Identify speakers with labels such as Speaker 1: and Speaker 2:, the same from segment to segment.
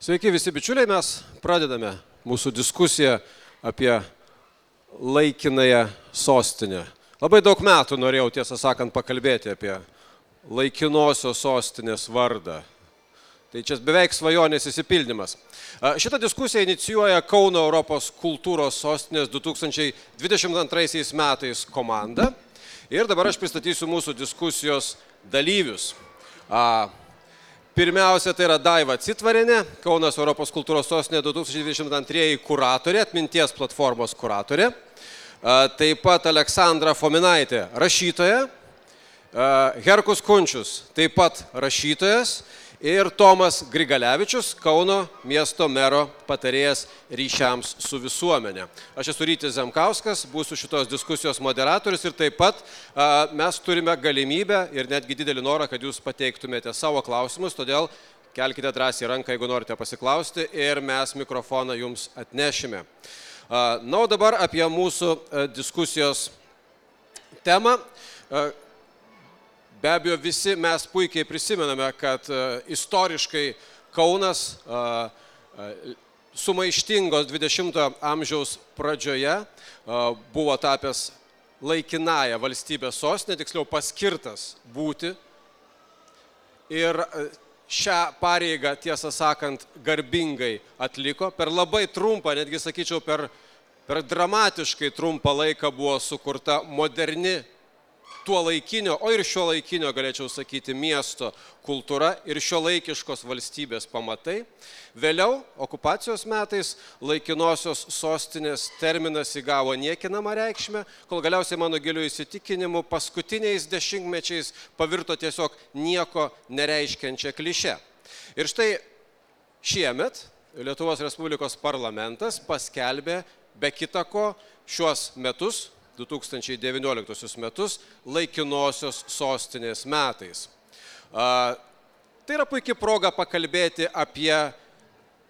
Speaker 1: Sveiki visi bičiuliai, mes pradedame mūsų diskusiją apie laikinąją sostinę. Labai daug metų norėjau, tiesą sakant, pakalbėti apie laikinosios sostinės vardą. Tai čia beveik svajonės išsipildymas. Šitą diskusiją inicijuoja Kauno Europos kultūros sostinės 2022 metais komanda. Ir dabar aš pristatysiu mūsų diskusijos dalyvius. Pirmiausia, tai yra Daiva Citvarienė, Kaunas Europos kultūros sostinė 2022 kuratorė, atminties platformos kuratorė. Taip pat Aleksandra Fominaitė, rašytoja. Herkus Kunčius, taip pat rašytojas. Ir Tomas Grigalevičius, Kauno miesto mero patarėjas ryšiams su visuomenė. Aš esu Rytis Zemkauskas, būsiu šitos diskusijos moderatorius ir taip pat mes turime galimybę ir netgi didelį norą, kad jūs pateiktumėte savo klausimus, todėl kelkite drąsiai ranką, jeigu norite pasiklausti ir mes mikrofoną jums atnešime. Na, o dabar apie mūsų diskusijos temą. Be abejo, visi mes puikiai prisimename, kad istoriškai Kaunas sumaištingos 20-ojo amžiaus pradžioje buvo tapęs laikinąją valstybės sostinę, tiksliau paskirtas būti. Ir šią pareigą, tiesą sakant, garbingai atliko. Per labai trumpą, netgi sakyčiau, per dramatiškai trumpą laiką buvo sukurta moderni tuo laikinio, o ir šio laikinio, galėčiau sakyti, miesto kultūra ir šio laikiškos valstybės pamatai. Vėliau, okupacijos metais, laikinosios sostinės terminas įgavo niekinamą reikšmę, kol galiausiai mano giliu įsitikinimu paskutiniais dešimtmečiais pavirto tiesiog nieko nereiškiančią klišę. Ir štai šiemet Lietuvos Respublikos parlamentas paskelbė be kita ko šiuos metus, 2019 metus, laikinosios sostinės metais. Tai yra puikia proga pakalbėti apie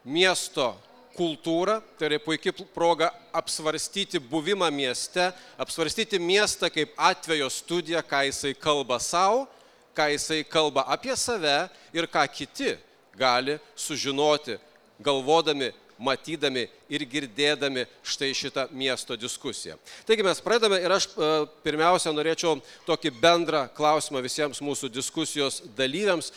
Speaker 1: miesto kultūrą, tai yra puikia proga apsvarstyti buvimą mieste, apsvarstyti miestą kaip atvejo studiją, ką jisai kalba savo, ką jisai kalba apie save ir ką kiti gali sužinoti, galvodami, matydami ir girdėdami štai šitą miesto diskusiją. Taigi mes pradedame ir aš pirmiausia norėčiau tokį bendrą klausimą visiems mūsų diskusijos dalyviams.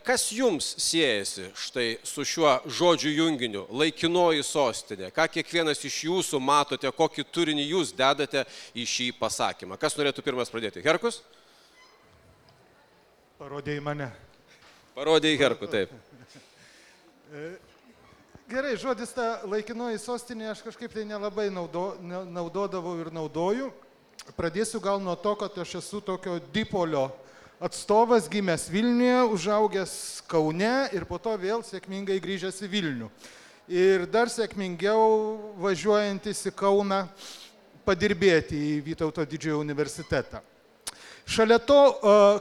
Speaker 1: Kas jums siejasi štai su šiuo žodžių junginiu, laikinoji sostinė? Ką kiekvienas iš jūsų matote, kokį turinį jūs dedate į šį pasakymą? Kas norėtų pirmas pradėti? Herkus?
Speaker 2: Parodė į mane.
Speaker 1: Parodė į Herkų, taip.
Speaker 2: Gerai, žodis ta laikinoji sostinė aš kažkaip tai nelabai naudodavau ir naudoju. Pradėsiu gal nuo to, kad aš esu tokio dipolio atstovas, gimęs Vilniuje, užaugęs Kaune ir po to vėl sėkmingai grįžęs į Vilnių. Ir dar sėkmingiau važiuojantis į Kauną padirbėti į Vytauto didžiojo universitetą. Šalia to,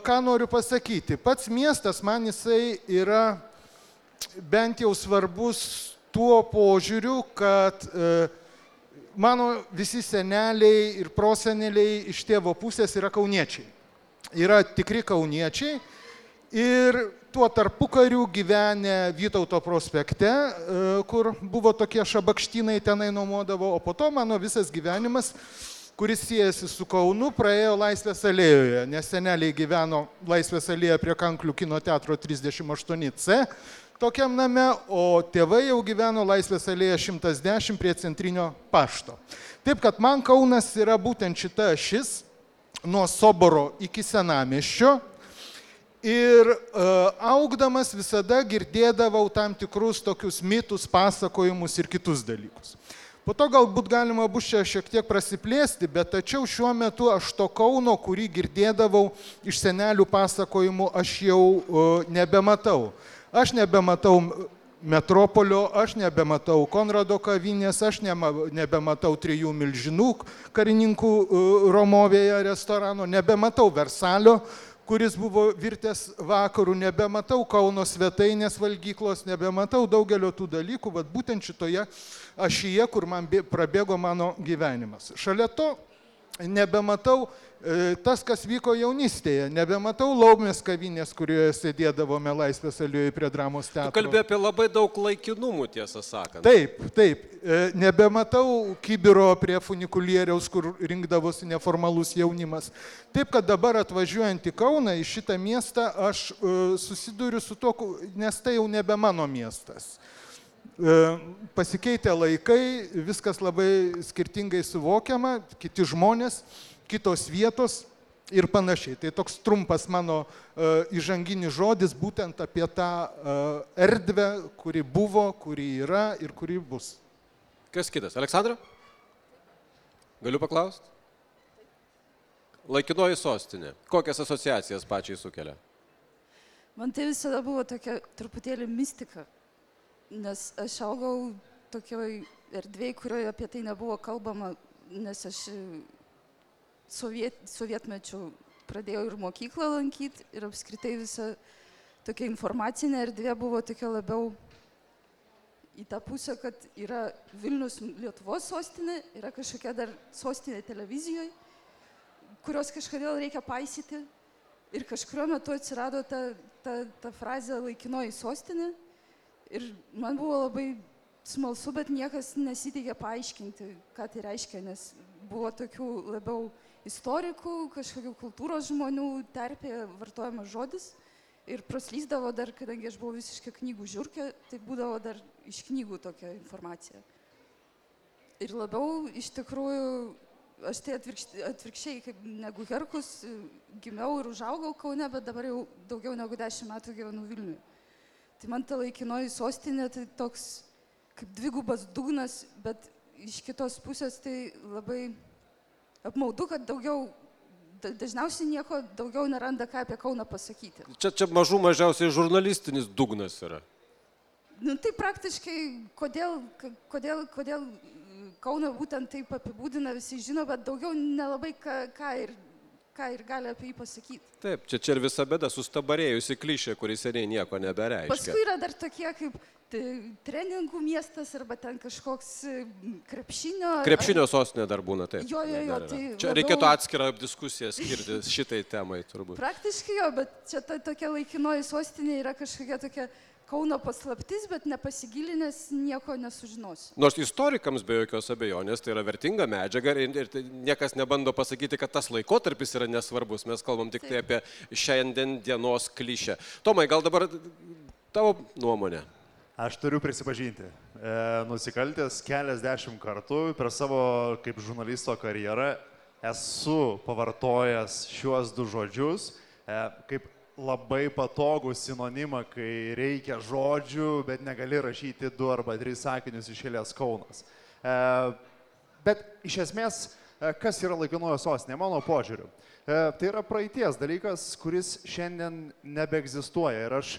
Speaker 2: ką noriu pasakyti, pats miestas man jisai yra bent jau svarbus tuo požiūriu, kad mano visi seneliai ir proseneliai iš tėvo pusės yra kauniečiai. Yra tikri kauniečiai ir tuo tarpukariu gyvenę Vytauto prospekte, kur buvo tokie šabakštynai tenai nuomodavo, o po to mano visas gyvenimas, kuris siejasi su Kaunu, praėjo Laisvės alėjoje, nes seneliai gyveno Laisvės alėjoje prie Kanklių kino teatro 38C, tokiam name, o tėvai jau gyveno Laisvės alėja 110 prie Centrinio pašto. Taip, kad man Kaunas yra būtent šita ašis, nuo Soboro iki Senamiesčio ir augdamas visada girdėdavau tam tikrus tokius mitus, pasakojimus ir kitus dalykus. Po to galbūt galima bus čia šiek tiek prasiplėsti, bet tačiau šiuo metu aš to Kauno, kurį girdėdavau iš senelių pasakojimų, aš jau nebematau. Aš nebematau Metropolio, aš nebematau Konrado kavinės, aš nebematau Trijų milžinų karininkų Romovėje restorano, nebematau Versalio, kuris buvo virtęs vakarų, nebematau Kauno svetainės valgyklos, nebematau daugelio tų dalykų, bet būtent šitoje ašyje, kur man prabėgo mano gyvenimas. Šalia to nebematau tas, kas vyko jaunystėje. Nebematau Laumės kavinės, kurioje sėdėdavome Laisvės alėjoje prie Dramos teatro.
Speaker 1: Tu kalbėjai apie labai daug laikinumų, tiesą sakant.
Speaker 2: Taip. Nebematau kibiro prie funikulieriaus, kur rinkdavosi neformalus jaunimas. Taip, kad dabar atvažiuojant į Kauną, į šitą miestą, aš susiduriu su to, nes tai jau nebe mano miestas. Pasikeitė laikai, viskas labai skirtingai suvokiama, kiti žmonės, kitos vietos ir panašiai. Tai toks trumpas mano įžanginis žodis būtent apie tą erdvę, kuri buvo, kuri yra ir kuri bus.
Speaker 1: Kas kitas? Aleksandra? Galiu paklausti? Laikinoji sostinė. Kokias asociacijas pačiai sukelia?
Speaker 3: Man tai visada buvo tokia truputėlį mistika, nes aš augau tokioj erdvėj, kurioje apie tai nebuvo kalbama, nes aš sovietmečiu pradėjau ir mokyklą lankyti ir apskritai visa tokia informacinė erdvė buvo tokia labiau į tą pusę, kad yra Vilnius Lietuvos sostinė, yra kažkokia dar sostinė televizijoje, kurios kažkodėl reikia paisyti ir kažkurio metu atsirado ta frazė laikinoji sostinė ir man buvo labai smalsu, bet niekas nesiteikė paaiškinti, ką tai reiškia, nes buvo tokių labiau istorikų, kažkokių kultūros žmonių terpėje vartojamas žodis ir praslysdavo dar, kadangi aš buvau visiškai knygų žiurkė, tai būdavo dar iš knygų tokia informacija. Ir labiau iš tikrųjų, aš tai atvirkščiai kaip negu Herkus, gimiau ir užaugau Kaune, bet dabar jau daugiau negu 10 metų gyvenu Vilniuje. Tai man ta laikinoji sostinė tai toks kaip dvigubas dugnas, bet iš kitos pusės tai labai apmaudu, kad dažniausiai nieko daugiau neranda, ką apie Kauną pasakyti.
Speaker 1: Čia mažiausiai žurnalistinis dugnas yra.
Speaker 3: Nu, tai praktiškai, kodėl Kauną būtent taip apibūdina, visi žino, bet daugiau nelabai ką ir gali apie jį pasakyti.
Speaker 1: Taip, čia ir visa bėda, sustabarėjusi klišė, kuris seniai nieko nebereiškia.
Speaker 3: Paskui yra dar tokie kaip treningų miestas arba ten kažkoks krepšinio.
Speaker 1: Krepšinio sostinė dar būna, taip.
Speaker 3: Jo, tai
Speaker 1: čia reikėtų atskirą diskusiją skirti šitai temai turbūt.
Speaker 3: Praktiškai jo, bet čia tokia laikinoji sostinė yra kažkokia tokia Kauno paslaptis, bet nepasigilinęs nieko nesužinosi.
Speaker 1: Nors istorikams be jokios abejonės tai yra vertinga medžiaga ir niekas nebando pasakyti, kad tas laikotarpis yra nesvarbus. Mes kalbam tik tai apie šiandien dienos klišę. Tomai, gal dabar tavo nuomonė?
Speaker 4: Aš turiu prisipažinti, nusikaltęs keliasdešimt kartų per savo kaip žurnalisto karjerą esu pavartojęs šiuos du žodžius kaip labai patogų sinonimą, kai reikia žodžių, bet negali rašyti 2 arba 3 sakinius iš eilės Kaunas. Bet iš esmės, kas yra laikinoji sostinė, mano požiūriu? Tai yra praeities dalykas, kuris šiandien nebeegzistuoja ir aš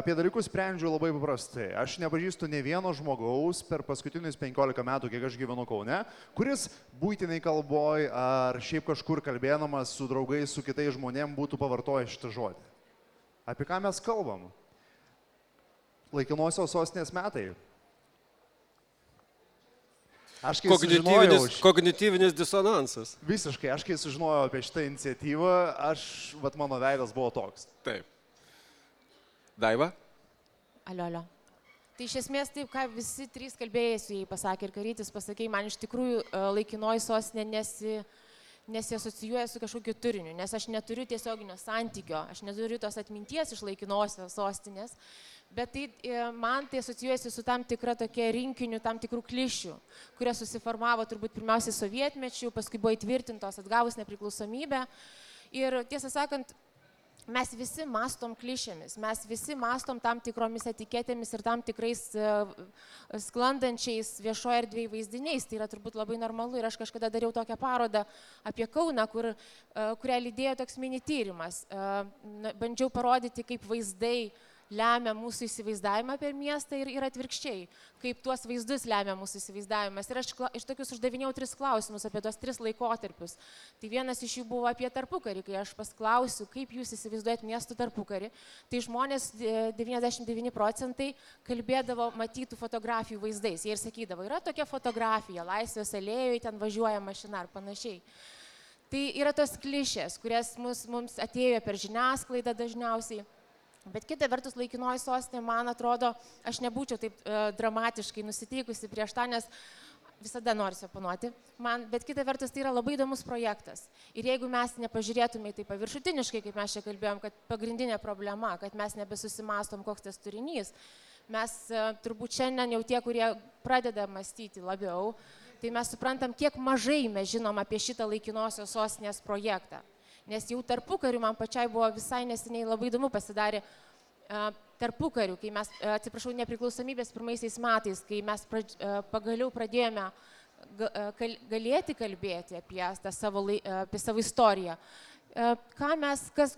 Speaker 4: apie dalykus sprendžiu labai paprastai. Aš nepažįstu ne vieno žmogaus per paskutinius 15 metų, kiek aš gyvenu Kaune, kuris buitiniai kalboj ar šiaip kažkur kalbėdamas su draugais, su kitais žmonėm būtų pavartojęs šitą žodį. Apie ką mes kalbam? Laikinosios sostinės metai. Aš kai sužinojau...
Speaker 1: Kognityvinis disonansas.
Speaker 4: Visiškai, aš kai sužinojau apie šitą iniciatyvą, mano veidas buvo toks.
Speaker 1: Taip. Daiva?
Speaker 5: Alio. Tai iš esmės taip, ką visi 3 kalbėjusiai pasakė ir Karytis pasakė, man iš tikrųjų laikinoji sostinė nesiasocijuoja su kažkokiu turiniu, nes aš neturiu tiesioginio santykio, aš neturiu tos atminties iš laikinosios sostinės, bet man tai asocijuojasi su tam tikra tokia rinkiniu, tam tikrų klišių, kurie susiformavo turbūt pirmiausiai sovietmečių, paskui buvo įtvirtintos atgavus nepriklausomybę. Ir tiesą sakant, mes visi mastom klišėmis, mes visi mastom tam tikromis etiketėmis ir tam tikrais sklandančiais viešoje erdvėje vaizdiniais. Tai yra turbūt labai normalu ir aš kažkada dariau tokią parodą apie Kauną, kurią lydėjo toks mini tyrimas. Bandžiau parodyti, kaip vaizdai lemia mūsų įsivaizdavimą per miestą ir atvirkščiai, kaip tuos vaizdus lemia mūsų įsivaizdavimas. Ir aš iš tokius uždavinėjau 3 klausimus apie tuos 3 laikotarpius. Tai vienas iš jų buvo apie tarpukarį, kai aš pasklausiu, kaip jūs įsivaizduojat miestų tarpukarį. Tai žmonės 99% kalbėdavo matytų fotografijų vaizdais. Jie ir sakydavo, yra tokia fotografija, Laisvės alėjoje, ten važiuoja mašina ar panašiai. Tai yra tos klišės, kurias mums atėjo per žiniasklaidą dažniausiai. Bet kita vertus, laikinoji sostinė, man atrodo, aš nebūčiau taip dramatiškai nusiteikusi prieš tą, nes visada noriu oponuoti. Bet kita vertus, tai yra labai įdomus projektas. Ir jeigu mes nepažiūrėtume į tai paviršutiniškai, kaip mes čia kalbėjom, kad pagrindinė problema, kad mes nebesusimastom, koks tas turinys, mes turbūt šiandien jau tie, kurie pradeda mąstyti labiau, tai mes suprantam, kiek mažai mes žinom apie šitą laikinosios sostinės projektą. Nes jau tarpukariu man pačiai buvo visai neseniai labai įdomu pasidarė tarpukariu, kai mes, nepriklausomybės pirmaisiais metais, kai mes pagaliau pradėjome galėti kalbėti apie savo istoriją.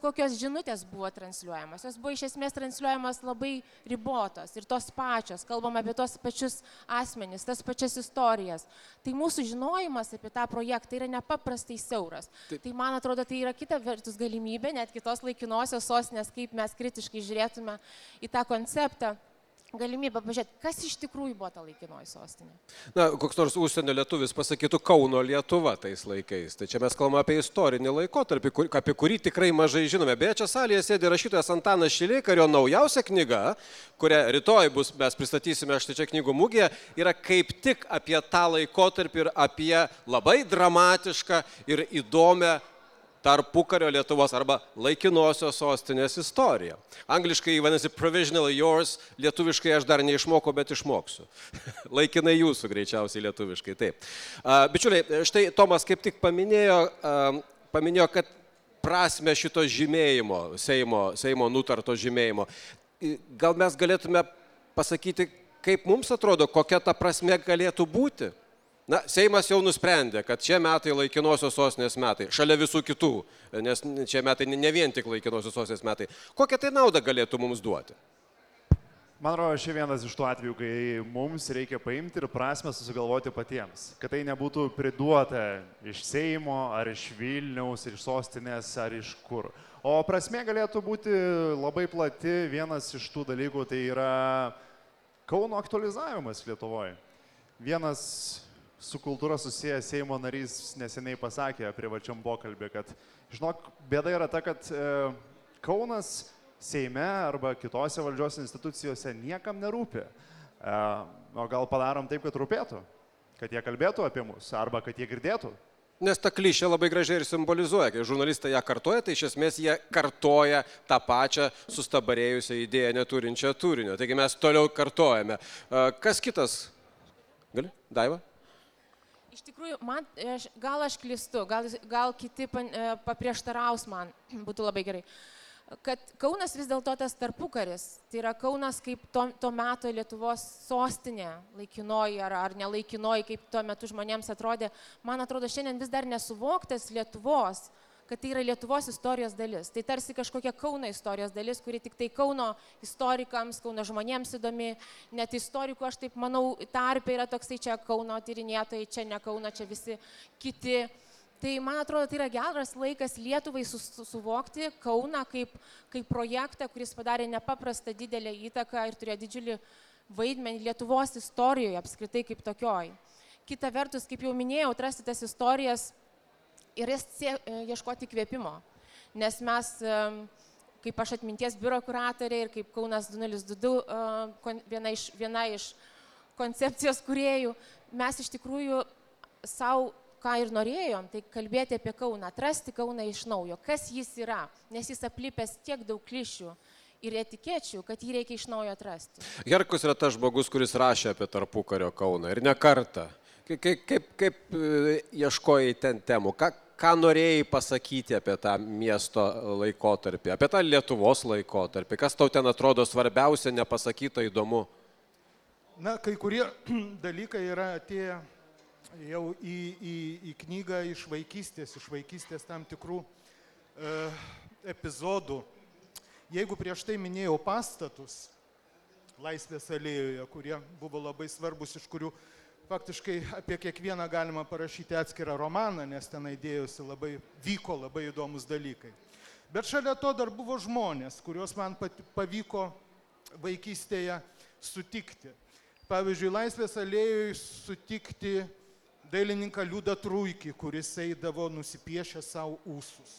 Speaker 5: Kokios žinutės buvo transliuojamos. Jos buvo iš esmės transliuojamos labai ribotos ir tos pačios. Kalbam apie tos pačius asmenis, tas pačias istorijas. Tai mūsų žinojimas apie tą projektą yra nepaprastai siauras. Tai man atrodo, tai yra kita vertus galimybė, net kitos laikinosios sostinės, kaip mes kritiškai žiūrėtume į tą konceptą. Galimybę pažiūrėti, kas iš tikrųjų buvo ta laikinoji sostinė.
Speaker 1: Na, koks nors užsienio lietuvis pasakytų Kauno Lietuva tais laikais. Tai čia mes kalbame apie istorinį laikotarpį, apie kurį tikrai mažai žinome. Beje, čia salėje sėdi rašytojas Antanas Šileika ir jo naujausia knyga, kurią rytoj mes pristatysime štai čia knygų mugėje, yra kaip tik apie tą laikotarpį ir apie labai dramatišką ir įdomią tarpukario Lietuvos arba laikinosios sostinės istorija. Angliškai vadinasi provisionally yours, lietuviškai aš dar neišmokau, bet išmoksiu. Laikinai jūsų greičiausiai lietuviškai, taip. Bičiuliai, štai Tomas kaip tik paminėjo, kad prasme šito žymėjimo, Seimo nutarto žymėjimo. Gal mes galėtume pasakyti, kaip mums atrodo, kokia ta prasme galėtų būti? Na, Seimas jau nusprendė, kad šie metai laikinosios sostinės metai, šalia visų kitų, nes šie metai ne vien tik laikinosios sostinės metai. Kokią tai naudą galėtų mums duoti?
Speaker 4: Man atrodo, šia vienas iš tų atvejų, kai mums reikia paimti ir prasme susigalvoti patiems. Kad tai nebūtų priduota iš Seimo, ar iš Vilniaus, iš sostinės, ar iš kur. O prasme galėtų būti labai plati. Vienas iš tų dalykų tai yra Kauno aktualizavimas Lietuvoje. Vienas su kultūra susijęs Seimo narys neseniai pasakė privačiam pokalbį, kad, žinok, bėda yra ta, kad Kaunas Seime arba kitose valdžios institucijose niekam nerūpi. O gal padarom taip, kad rūpėtų, kad jie kalbėtų apie mus arba kad jie girdėtų.
Speaker 1: Nes ta klišė labai gražiai ir simbolizuoja, kai žurnalistai ją kartoja, tai iš esmės jie kartoja tą pačią sustabarėjusią idėją neturinčią turinio. Taigi mes toliau kartojame. Kas kitas? Gali? Daiva?
Speaker 5: Iš tikrųjų, gal aš klystu, gal kiti paprieštaraus man, būtų labai gerai, kad Kaunas vis dėlto tas tarpukaris, tai yra Kaunas kaip to meto Lietuvos sostinė, laikinoji ar nelaikinoji, kaip tuo metu žmonėms atrodė, man atrodo, šiandien vis dar nesuvoktas Lietuvos, kad tai yra Lietuvos istorijos dalis. Tai tarsi kažkokia Kauno istorijos dalis, kuri tik tai Kauno istorikams, Kauno žmonėms įdomi, net istorikų, aš taip manau, tarpe yra toksai čia Kauno tyrinėtojai, čia ne Kauno, čia visi kiti. Tai man atrodo, tai yra geras laikas Lietuvai suvokti Kauną kaip projektą, kuris padarė nepaprastą didelę įtaką ir turėjo didžiulį vaidmenį Lietuvos istorijoje apskritai kaip tokioj. Kita vertus, kaip jau minėjau, atrasti tas istorijas ir ieškoti įkvėpimo, nes mes, kaip aš atminties biuro kuratorė ir kaip Kaunas 2022, viena iš koncepcijos kūrėjų, mes iš tikrųjų savo, ką ir norėjom, tai kalbėti apie Kauną, atrasti Kauną iš naujo, kas jis yra, nes jis aplipęs tiek daug klišių ir etikečių, kad jį reikia iš naujo atrasti.
Speaker 1: Herkus yra tas žmogus, kuris rašė apie tarpukario Kauną ir ne kartą. Kaip ieškojai ten temų? Ką norėjai pasakyti apie tą miesto laikotarpį, apie tą Lietuvos laikotarpį? Kas tau ten atrodo svarbiausia, nepasakyta, įdomu?
Speaker 2: Na, kai kurie dalykai yra atėję jau į knygą iš vaikystės tam tikrų epizodų. Jeigu prieš tai minėjau pastatus Laisvės alėjoje, kurie buvo labai svarbus, iš kurių faktiškai apie kiekvieną galima parašyti atskirą romaną, nes tenai vyko labai įdomus dalykai. Bet šalia to dar buvo žmonės, kuriuos man pavyko vaikystėje sutikti. Pavyzdžiui, Laisvės alėjoje sutikti dailininką Liudą Truikį, kuris eidavo nusipiešę savo ūsus.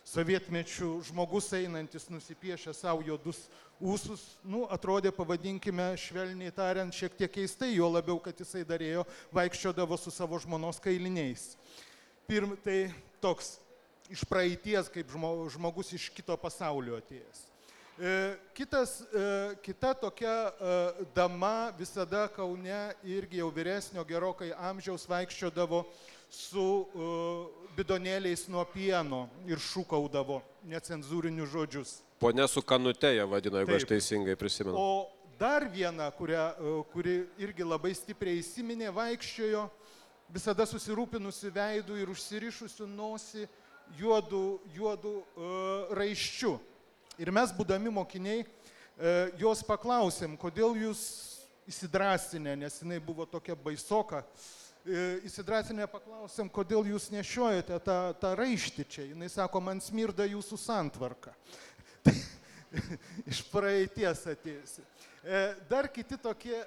Speaker 2: Sovietmečių žmogus einantis nusipiešę savo juodus ūsus, atrodė, pavadinkime, švelniai tariant, šiek tiek keistai, jo labiau, kad jisai darėjo, vaikščiodavo su savo žmonos kailiniais. Tai toks iš praeities, kaip žmogus iš kito pasaulio atėjęs. Kita tokia dama visada Kaune irgi jau vyresnio gerokai amžiaus vaikščiodavo su bidonėliais nuo pieno ir šūkaudavo necenzūrinius žodžius.
Speaker 1: Pone su kanute ją vadino, jeigu aš teisingai prisimenu.
Speaker 2: O dar viena, kuri irgi labai stipriai įsiminė, vaikščiojo visada susirūpinusi veidų ir užsirišusių nosį juodų raiščių. Ir mes, būdami mokiniai, jos paklausėm, kodėl jūs įsidrasinę, nes jinai buvo tokia baisoka, įsidrasinę paklausėm, kodėl jūs nešiojate tą raištį čia. Jinai sako, man smirda jūsų santvarka. Iš praeities atėjusi. Dar kiti tokie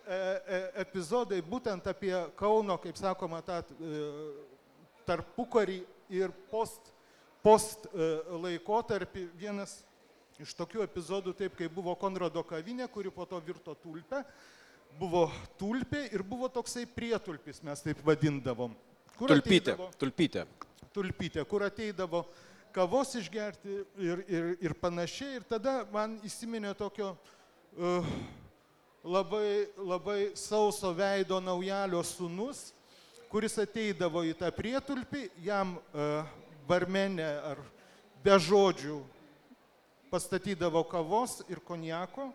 Speaker 2: epizodai, būtent apie Kauno, kaip sakoma, tą tarpukarį ir post laikotarpį. Vienas iš tokių epizodų, taip kaip buvo Konrado kavinė, kuri po to virto tulpę, buvo tulpė ir buvo toksai prietulpis, mes taip vadindavom. Tulpytė, kur ateidavo kavos išgerti ir panašiai. Ir tada man įsiminė tokio labai sauso veido naujalio sūnus, kuris ateidavo į tą prietulpį, jam barmenė ar be žodžių pastatydavo kavos ir konjako,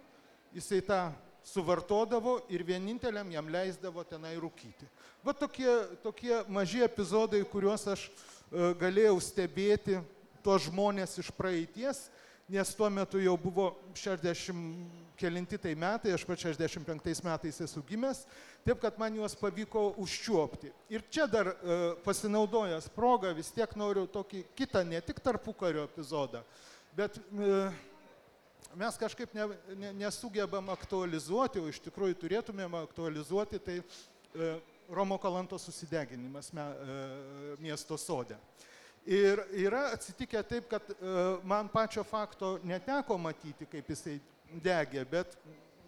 Speaker 2: jisai tą suvartodavo ir vieninteliam jam leisdavo tenai rūkyti. Va tokie maži epizodai, kuriuos aš galėjau stebėti, tuos žmonės iš praeities, nes tuo metu jau buvo 60 kelinti tai metai, aš pat 65 metais esu gimęs, taip kad man juos pavyko užčiuopti. Ir čia dar pasinaudojęs progą vis tiek noriu tokį kitą, ne tik tarpukario epizodą, bet mes kažkaip nesugebam aktualizuoti, o iš tikrųjų turėtumėm aktualizuoti, tai Romo Kalantos susideginimas miesto sode. Ir yra atsitikę taip, kad man pačio fakto neteko matyti, kaip jisai degė, bet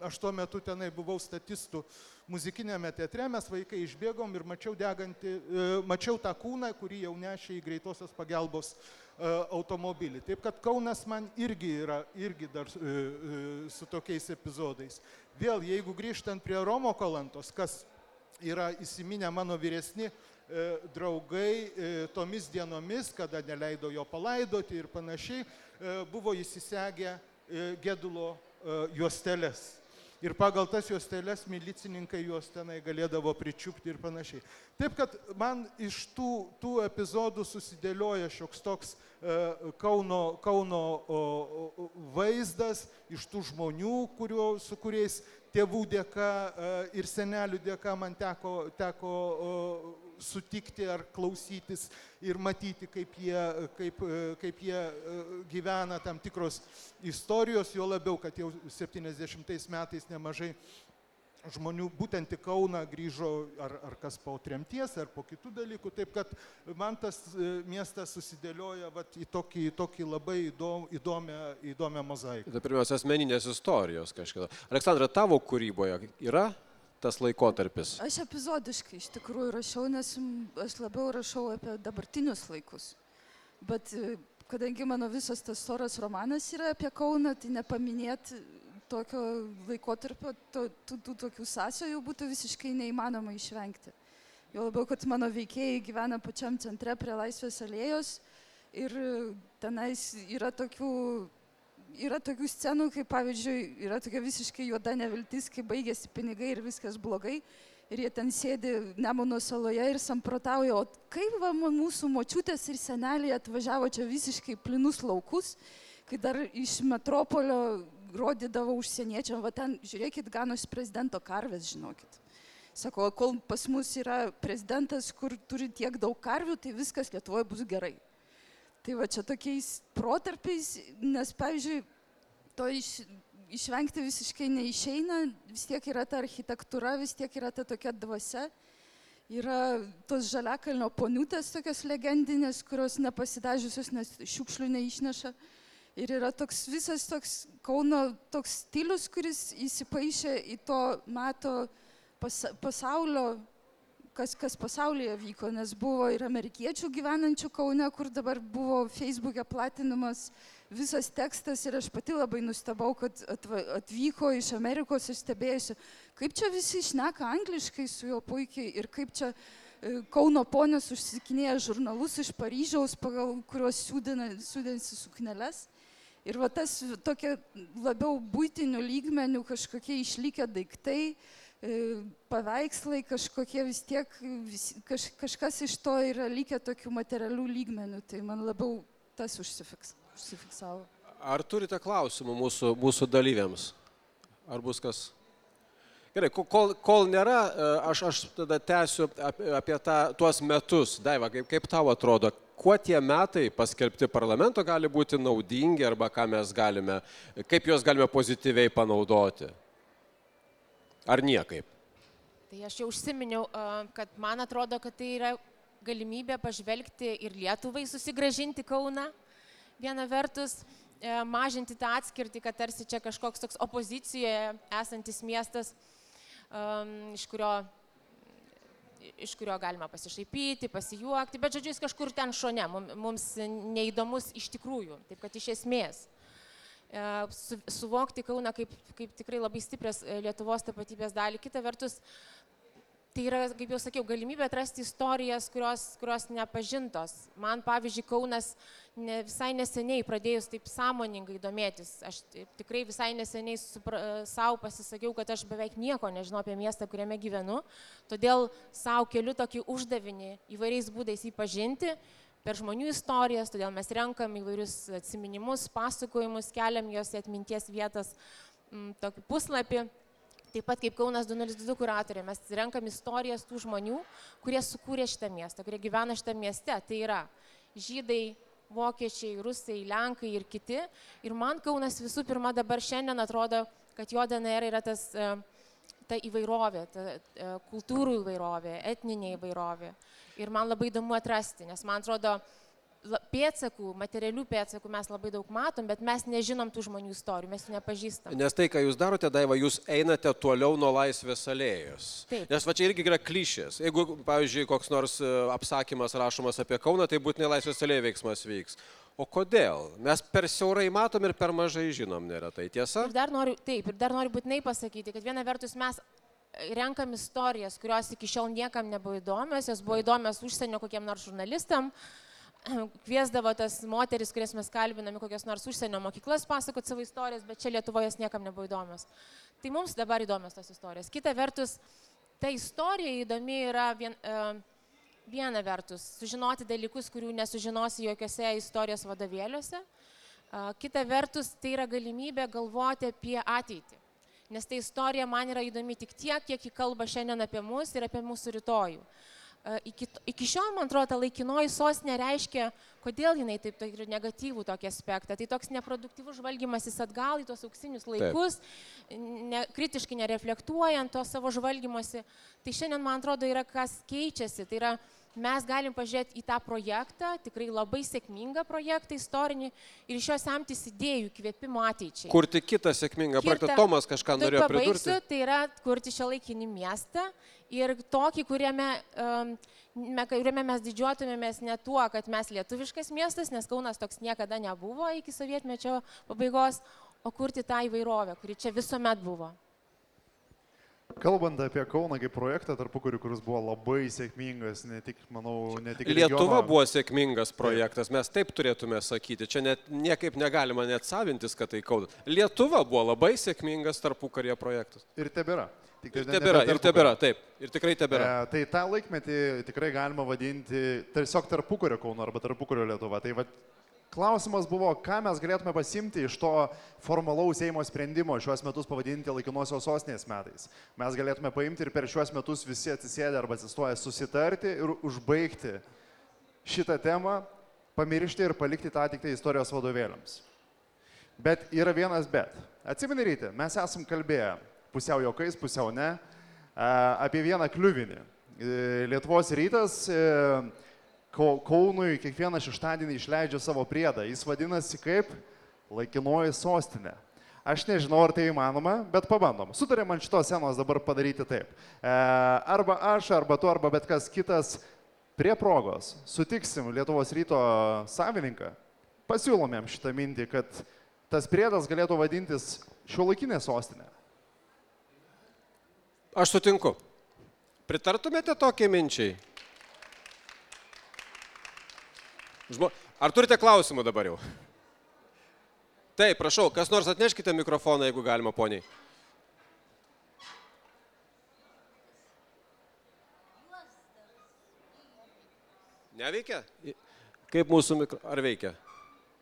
Speaker 2: aš tuo metu tenai buvau statistų muzikinėme teatre, mes vaikai išbėgom ir mačiau tą kūną, kurį jau nešė į greitosios pagalbos automobilį. Taip kad Kaunas man irgi yra dar su tokiais epizodais. Vėl, jeigu grįžtant prie Romo Kalantos, kas yra įsiminę mano vyresni draugai tomis dienomis, kada neleido jo palaidoti ir panašiai, buvo įsisegę gedulo juosteles. Ir pagal tas juosteles milicininkai juos tenai galėdavo pričiupti ir panašiai. Taip, kad man iš tų epizodų susidėlioja šioks toks Kauno vaizdas, iš tų žmonių, su kuriais tėvų dėka ir senelių dėka man teko sutikti ar klausytis ir matyti, kaip jie gyvena tam tikros istorijos, jo labiau, kad jau 70 metais nemažai žmonių būtent į Kauną grįžo ar kas po tremties, ar po kitų dalykų. Taip, kad man tas miestas susidėlioja į tokį labai įdomią mozaiką.
Speaker 1: Tai pirmiausia, asmeninės istorijos kažkada. Aleksandra, tavo kūryboje yra tas laikotarpis?
Speaker 3: Aš epizodiškai iš tikrųjų rašau, nes aš labiau rašau apie dabartinius laikus. Bet kadangi mano visas tas storas romanas yra apie Kauną, tai nepaminėti tokio laikotarpio, tų tokių sąsajų būtų visiškai neįmanoma išvengti. Jo labiau, kad mano veikėjai gyvena pačiam centre prie Laisvės alėjos ir tenais yra tokių scenų, kaip pavyzdžiui, yra tokia visiškai juoda neviltis, kai baigėsi pinigai ir viskas blogai. Ir jie ten sėdi Nemuno saloje ir samprotauja, o kaip mūsų močiutės ir seneliai atvažiavo čia visiškai plinus laukus, kai dar iš metropolio rodydavo užsieniečiam, va ten, žiūrėkit, ganosi prezidento karvės, žinokit. Sako, kol pas mus yra prezidentas, kur turi tiek daug karvių, tai viskas Lietuvoje bus gerai. Tai va čia tokiais protarpiais, nes, pavyzdžiui, to išvengti visiškai neišeina, vis tiek yra ta architektūra, vis tiek yra ta tokia dvasia. Yra tos Žaliakalnio poniutės tokios legendinės, kurios nepasidažiusios, nes šiukšlių neišneša. Ir yra toks visas toks Kauno toks stilius, kuris įsipaišė į to meto pasaulio, kas pasaulyje vyko, nes buvo ir amerikiečių gyvenančių Kaune, kur dabar buvo Facebook'e platinamas visas tekstas ir aš pati labai nustebau, kad atvyko iš Amerikos ir stebėjusi, kaip čia visi šneka angliškai su juo puikiai ir kaip čia Kauno ponios užsikinėja žurnalus iš Paryžiaus, pagal kuriuos siūdinsi sukneles. Ir va tas tokia labiau buitinių lygmenių kažkokie išlikę daiktai, paveikslai kažkokie vis tiek, kažkas iš to yra likę tokių materialių lygmenių, tai man labiau tas užsifiksavo.
Speaker 1: Ar turite klausimų mūsų dalyviams? Ar bus kas? Gerai, kol nėra, aš tada tęsiu apie tuos metus. Daiva, kaip tau atrodo, kuo tie metai paskelbti parlamento gali būti naudingi arba kaip juos galime pozityviai panaudoti? Ar niekaip?
Speaker 5: Tai aš jau užsiminiau, kad man atrodo, kad tai yra galimybė pažvelgti ir Lietuvai susigrąžinti Kauną. Viena vertus, mažinti tą atskirtį, kad tarsi čia kažkoks toks opozicijoje esantis miestas, iš kurio galima pasišaipyti, pasijuokti, bet žodžiu, jis kažkur ten šone, mums neįdomus iš tikrųjų, taip kad iš esmės. Suvokti Kauną kaip tikrai labai stiprias Lietuvos tapatybės dalį. Kita vertus, tai yra, kaip jau sakiau, galimybė atrasti istorijas, kurios nepažintos. Man, pavyzdžiui, Kaunas visai neseniai pradėjus taip sąmoningai domėtis. Aš tikrai visai neseniai savo pasisakiau, kad aš beveik nieko nežinau apie miestą, kuriame gyvenu. Todėl savo keliu tokį uždavinį įvairiais būdais jį pažinti. Per žmonių istorijas, todėl mes renkam įvairius atsiminimus, pasakojimus, keliam jos į atminties vietas tokį puslapį. Taip pat kaip Kaunas 2022 kuratorė, mes renkam istorijas tų žmonių, kurie sukūrė šitą miestą, kurie gyvena šitą mieste. Tai yra žydai, vokiečiai, rusai, lenkai ir kiti. Ir man Kaunas visų pirma dabar šiandien atrodo, kad jo DNR yra ta įvairovė, ta kultūrų įvairovė, etninė įvairovė. Ir man labai įdomu atrasti, nes man atrodo, pėdsakų, materialių pėdsakų mes labai daug matom, bet mes nežinom tų žmonių istorijų, mes jų nepažįstam.
Speaker 1: Nes tai, ką jūs darote, Daiva, jūs einate toliau nuo Laisvės alėjos.
Speaker 5: Taip.
Speaker 1: Nes va čia irgi yra klišės. Jeigu, pavyzdžiui, koks nors apsakymas rašomas apie Kauną, tai būtinai Laisvės alėjos veiksmas vyks. O kodėl? Mes per siaurai matom ir per mažai žinom, nėra tai tiesa?
Speaker 5: Ir dar noriu būtinai pasakyti, kad viena vertus mes renkam istorijas, kurios iki šiol niekam nebuvo įdomios, jos buvo įdomios užsienio kokiem nors žurnalistam, kviesdavo tas moteris, kurias mes kalbiname, kokios nors užsienio mokyklas pasakot savo istorijas, bet čia Lietuvoje jos niekam nebuvo įdomios. Tai mums dabar įdomios tos istorijos. Kita vertus, ta istorija įdomi yra viena vertus, sužinoti dalykus, kurių nesužinosi jokiose istorijos vadovėliuose. Kita vertus, tai yra galimybė galvoti apie ateitį. Nes ta istorija man yra įdomi tik tiek, kiek ji kalba šiandien apie mus ir apie mūsų rytojų. Iki šiol, man atrodo, ta laikinoji sostinė reiškia, kodėl jinai taip turi negatyvų tokį aspektą. Tai toks neproduktyvus žvalgymasis atgal į tos auksinius laikus, kritiškai nereflektuojant to savo žvalgymosi. Tai šiandien, man atrodo, yra kas keičiasi. Tai yra, mes galim pažiūrėti į tą projektą, tikrai labai sėkmingą projektą istorinį ir iš jo semtis idėjų, įkvėpimo ateičiai.
Speaker 1: Kurti kitą sėkmingą projektą. Tomas kažką norėjo pridurti.
Speaker 5: Tai yra kurti šiuolaikinį miestą ir tokį, kuriame mes didžiuotumėmės ne tuo, kad mes lietuviškas miestas, nes Kaunas toks niekada nebuvo iki sovietmečio pabaigos, o kurti tą įvairovę, kuri čia visuomet buvo.
Speaker 4: Kalbant apie Kauną kaip projektą tarpukariu, kuris buvo labai sėkmingas, ne tik
Speaker 1: Lietuva buvo sėkmingas projektas, mes taip turėtume sakyti, čia niekaip negalima net savintis, kad tai Kaunas. Lietuva buvo labai sėkmingas tarpukaryje projektas.
Speaker 4: Ir tebėra.
Speaker 1: Ir tebėra, taip, ir tikrai tebėra.
Speaker 4: Tai tą laikmetį tikrai galima vadinti tiesiog tarpukario Kauno arba tarpukario Lietuva. Tai va, klausimas buvo, ką mes galėtume pasimti iš to formalaus Seimo sprendimo šiuos metus pavadinti laikinosios sostinės metais. Mes galėtume paimti ir per šiuos metus visi atsisėdę arba atsistoję susitarti ir užbaigti šitą temą, pamiršti ir palikti tą tik tai istorijos vadovėliams. Bet yra vienas bet. Atsimeni, Rytė, mes esam kalbėję pusiau juokais, pusiau ne, apie vieną kliuvinį. Lietuvos rytas Kaunui kiekvieną šeštadienį išleidžia savo priedą. Jis vadinasi kaip laikinoji sostinė. Aš nežinau, ar tai įmanoma, bet pabandom. Sutarėm ant šitos scenos dabar padaryti taip. Arba aš, arba tu, arba bet kas kitas prie progos sutiksim Lietuvos ryto savininką, pasiūlomėm šitą mintį, kad tas priedas galėtų vadintis šiuolaikinė sostinė.
Speaker 1: Aš sutinku. Pritartumėte tokiai minčiai? Ar turite klausimų dabar jau? Taip, prašau, kas nors atneškite mikrofoną, jeigu galima, poniai. Neveikia? Kaip mūsų Ar veikia?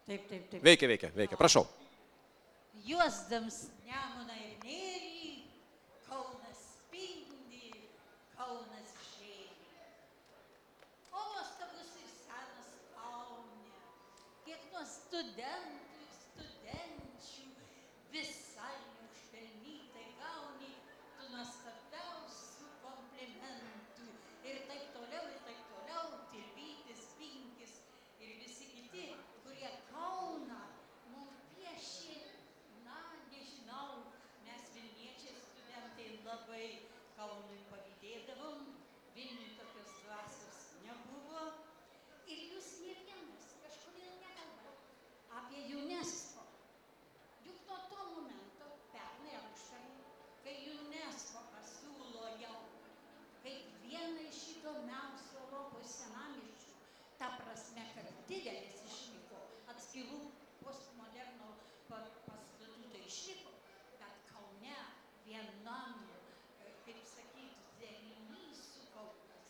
Speaker 6: Taip.
Speaker 1: Veikia. Prašau.
Speaker 6: Juosdams Nemuną ir Nerį, Kaunas spindi, Kaunas žėri. O nuostabus ir senas Kaune, kiek nuo studentų ir studenčių visai neužpelnytai gauni tu nuostabiausių komplimentų. Ir taip toliau, Tilvytis, Pinkis ir visi kiti, kurie Kauną mums piešė, nežinau, mes Vilniečiai studentai labai Kaunui pavydėdavom, Vilniui tokios dvasios nebuvo. Ir jūs ne vienas kažkodėl nekalba apie UNESCO. Juk nuo to momento, pernai ar užpernai, kai UNESCO pasiūlo jau kaip vieną iš įdomiausių Europos senamiesčių, ta prasme, kad didelis išliko, atskirų postmoderno pastatų tai išliko, bet Kaune vienam, kaip sakyti, derinys sukauptas,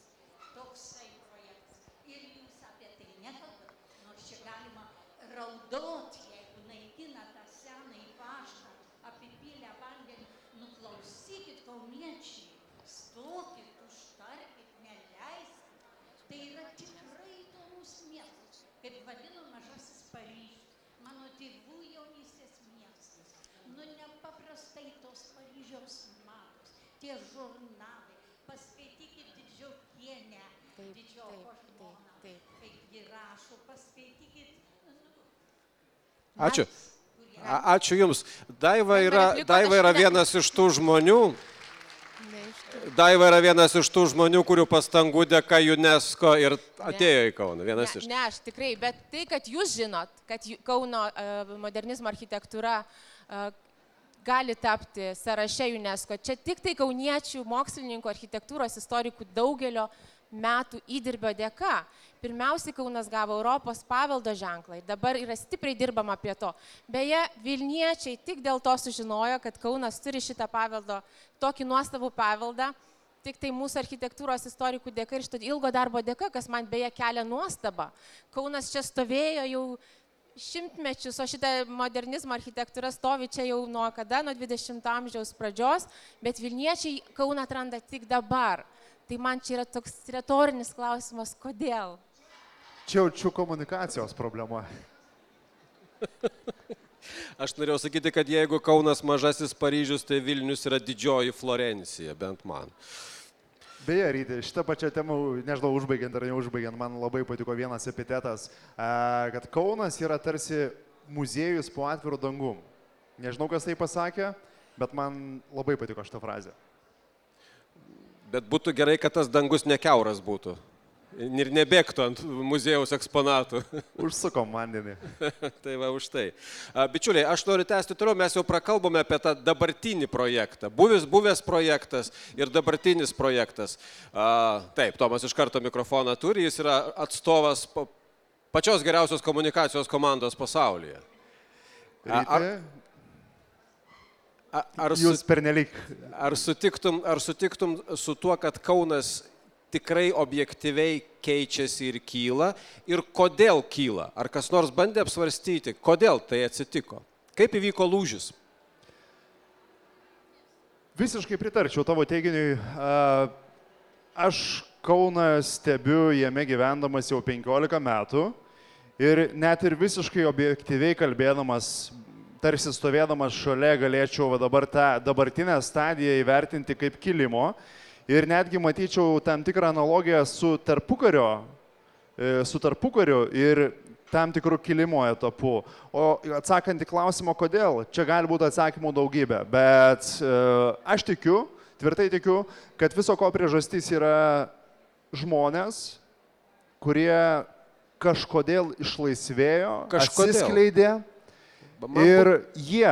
Speaker 6: toksai projektas. Ir jūs apie tai nekalbat, nors čia galima raudoti, jeigu naikina tą senąjį paštą, apipylę vandenį. Nuklausykit, kauniečiai, stokit, užtarkit, neleiskit. Tai yra tikrai įdomus miestas, kaip vadino Mažasis Paryžius, mano tėvų jaunystės miestas. Nepaprastai tos Paryžiaus matos, tie žurnalai, paskaitykit Didžiokienę, Didžioko žmoną, kaip ji rašo, paskaitykit.
Speaker 1: Ačiū. Ačiū Jums. Daiva yra vienas iš tų žmonių, kurių pastangų dėka UNESCO ir atėjo į Kauną.
Speaker 5: Ne, aš tikrai, bet tai, kad jūs žinot, kad Kauno modernizmo architektūra gali tapti sąraše UNESCO, čia tik tai kauniečių mokslininkų, architektūros istorikų daugelio metų įdirbio dėka. Pirmiausiai Kaunas gavo Europos paveldo ženklą ir dabar yra stipriai dirbama prie to. Beje, Vilniečiai tik dėl to sužinojo, kad Kaunas turi šitą paveldo, tokį nuostabų paveldą, tik tai mūsų architektūros istorikų dėka ir šito ilgo darbo dėka, kas man beje kelia nuostabą. Kaunas čia stovėjo jau šimtmečius, o šitą modernizmo architektūra stovi čia jau nuo kada, nuo 20 amžiaus pradžios, bet Vilniečiai Kauną atranda tik dabar. Tai man čia yra toks retorinis klausimas, kodėl?
Speaker 4: Čia jaučiu komunikacijos problema.
Speaker 1: Aš norėjau sakyti, kad jeigu Kaunas Mažasis Paryžius, tai Vilnius yra didžioji Florencija, bent man.
Speaker 4: Beje, Ryti, šitą pačią temą, nežinau, užbaigiant ar neužbaigiant, man labai patiko vienas epitetas, kad Kaunas yra tarsi muziejus po atviru dangum. Nežinau, kas tai pasakė, bet man labai patiko šitą frazę.
Speaker 1: Bet būtų gerai, kad tas dangus nekiauras būtų ir nebėgtų ant muziejaus eksponatų.
Speaker 4: Užsukom vandenį.
Speaker 1: Tai va, už tai. Bičiuliai, aš noriu tęsti toliau, mes jau prakalbome apie tą dabartinį projektą. Buvęs projektas ir dabartinis projektas. Taip, Tomas iš karto mikrofoną turi, jis yra atstovas pačios geriausios komunikacijos komandos pasaulyje.
Speaker 4: Jūs pernelyg.
Speaker 1: Ar sutiktum su tuo, kad Kaunas tikrai objektyviai keičiasi ir kyla? Ir kodėl kyla? Ar kas nors bandė apsvarstyti, kodėl tai atsitiko? Kaip įvyko lūžis?
Speaker 4: Visiškai pritarčiau tavo teiginiui. Aš Kauną stebiu jame gyvendamas jau 15 metų ir net ir visiškai objektyviai kalbėdamas, tarsi stovėdamas šalia galėčiau dabar tą dabartinę stadiją įvertinti kaip kilimo ir netgi matyčiau tam tikrą analogiją su tarpukariu ir tam tikrų kilimo etapų. O atsakant į klausimą, kodėl, čia gali būti atsakymų daugybė, bet aš tikiu, tvirtai tikiu, kad viso ko priežastis yra žmonės, kurie kažkodėl išlaisvėjo, atsiskleidė ir jie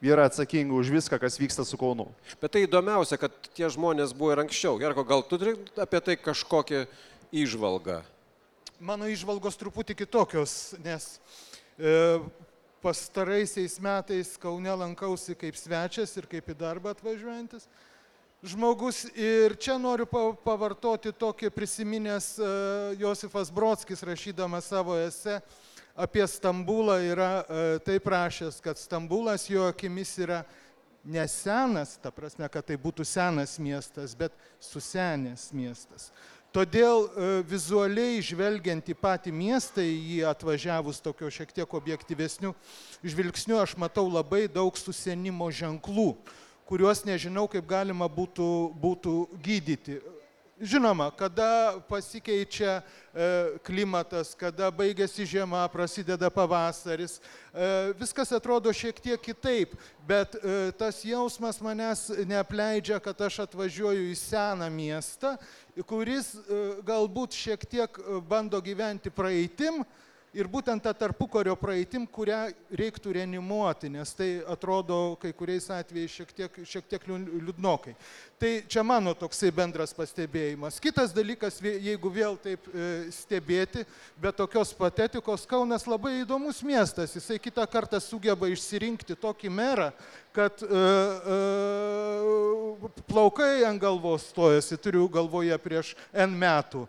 Speaker 4: yra atsakingi už viską, kas vyksta su Kaunu.
Speaker 1: Bet tai įdomiausia, kad tie žmonės buvo ir anksčiau. Gerko, gal tu turi apie tai kažkokią įžvalgą?
Speaker 2: Mano įžvalgos truputį kitokios, nes pastaraisiais metais Kaune lankausi kaip svečias ir kaip į darbą atvažiuojantis žmogus. Ir čia noriu pavartoti tokį prisiminęs Josifas Brodskis, rašydamas savo esė apie Stambulą, yra taip rašęs, kad Stambulas jo akimis yra ne senas, ta prasme, kad tai būtų senas miestas, bet susenęs miestas. Todėl vizualiai žvelgiant į patį miestą, į jį atvažiavus tokio šiek tiek objektyvesnių žvilgsnių, aš matau labai daug susenimo ženklų, kuriuos nežinau, kaip galima būtų gydyti. Žinoma, kada pasikeičia klimatas, kada baigėsi žiema, prasideda pavasaris, viskas atrodo šiek tiek kitaip, bet tas jausmas manęs neapleidžia, kad aš atvažiuoju į seną miestą, kuris galbūt šiek tiek bando gyventi praeitim ir būtent tą tarpukario praeitim, kurią reiktų reanimuoti, nes tai atrodo kai kuriais atvejais šiek tiek liūdnokai. Tai čia mano toksai bendras pastebėjimas. Kitas dalykas, jeigu vėl taip stebėti, be tokios patetikos, Kaunas labai įdomus miestas. Jisai kitą kartą sugeba išsirinkti tokį merą, kad plaukai ant galvos stojasi, turiu galvoje prieš N metų.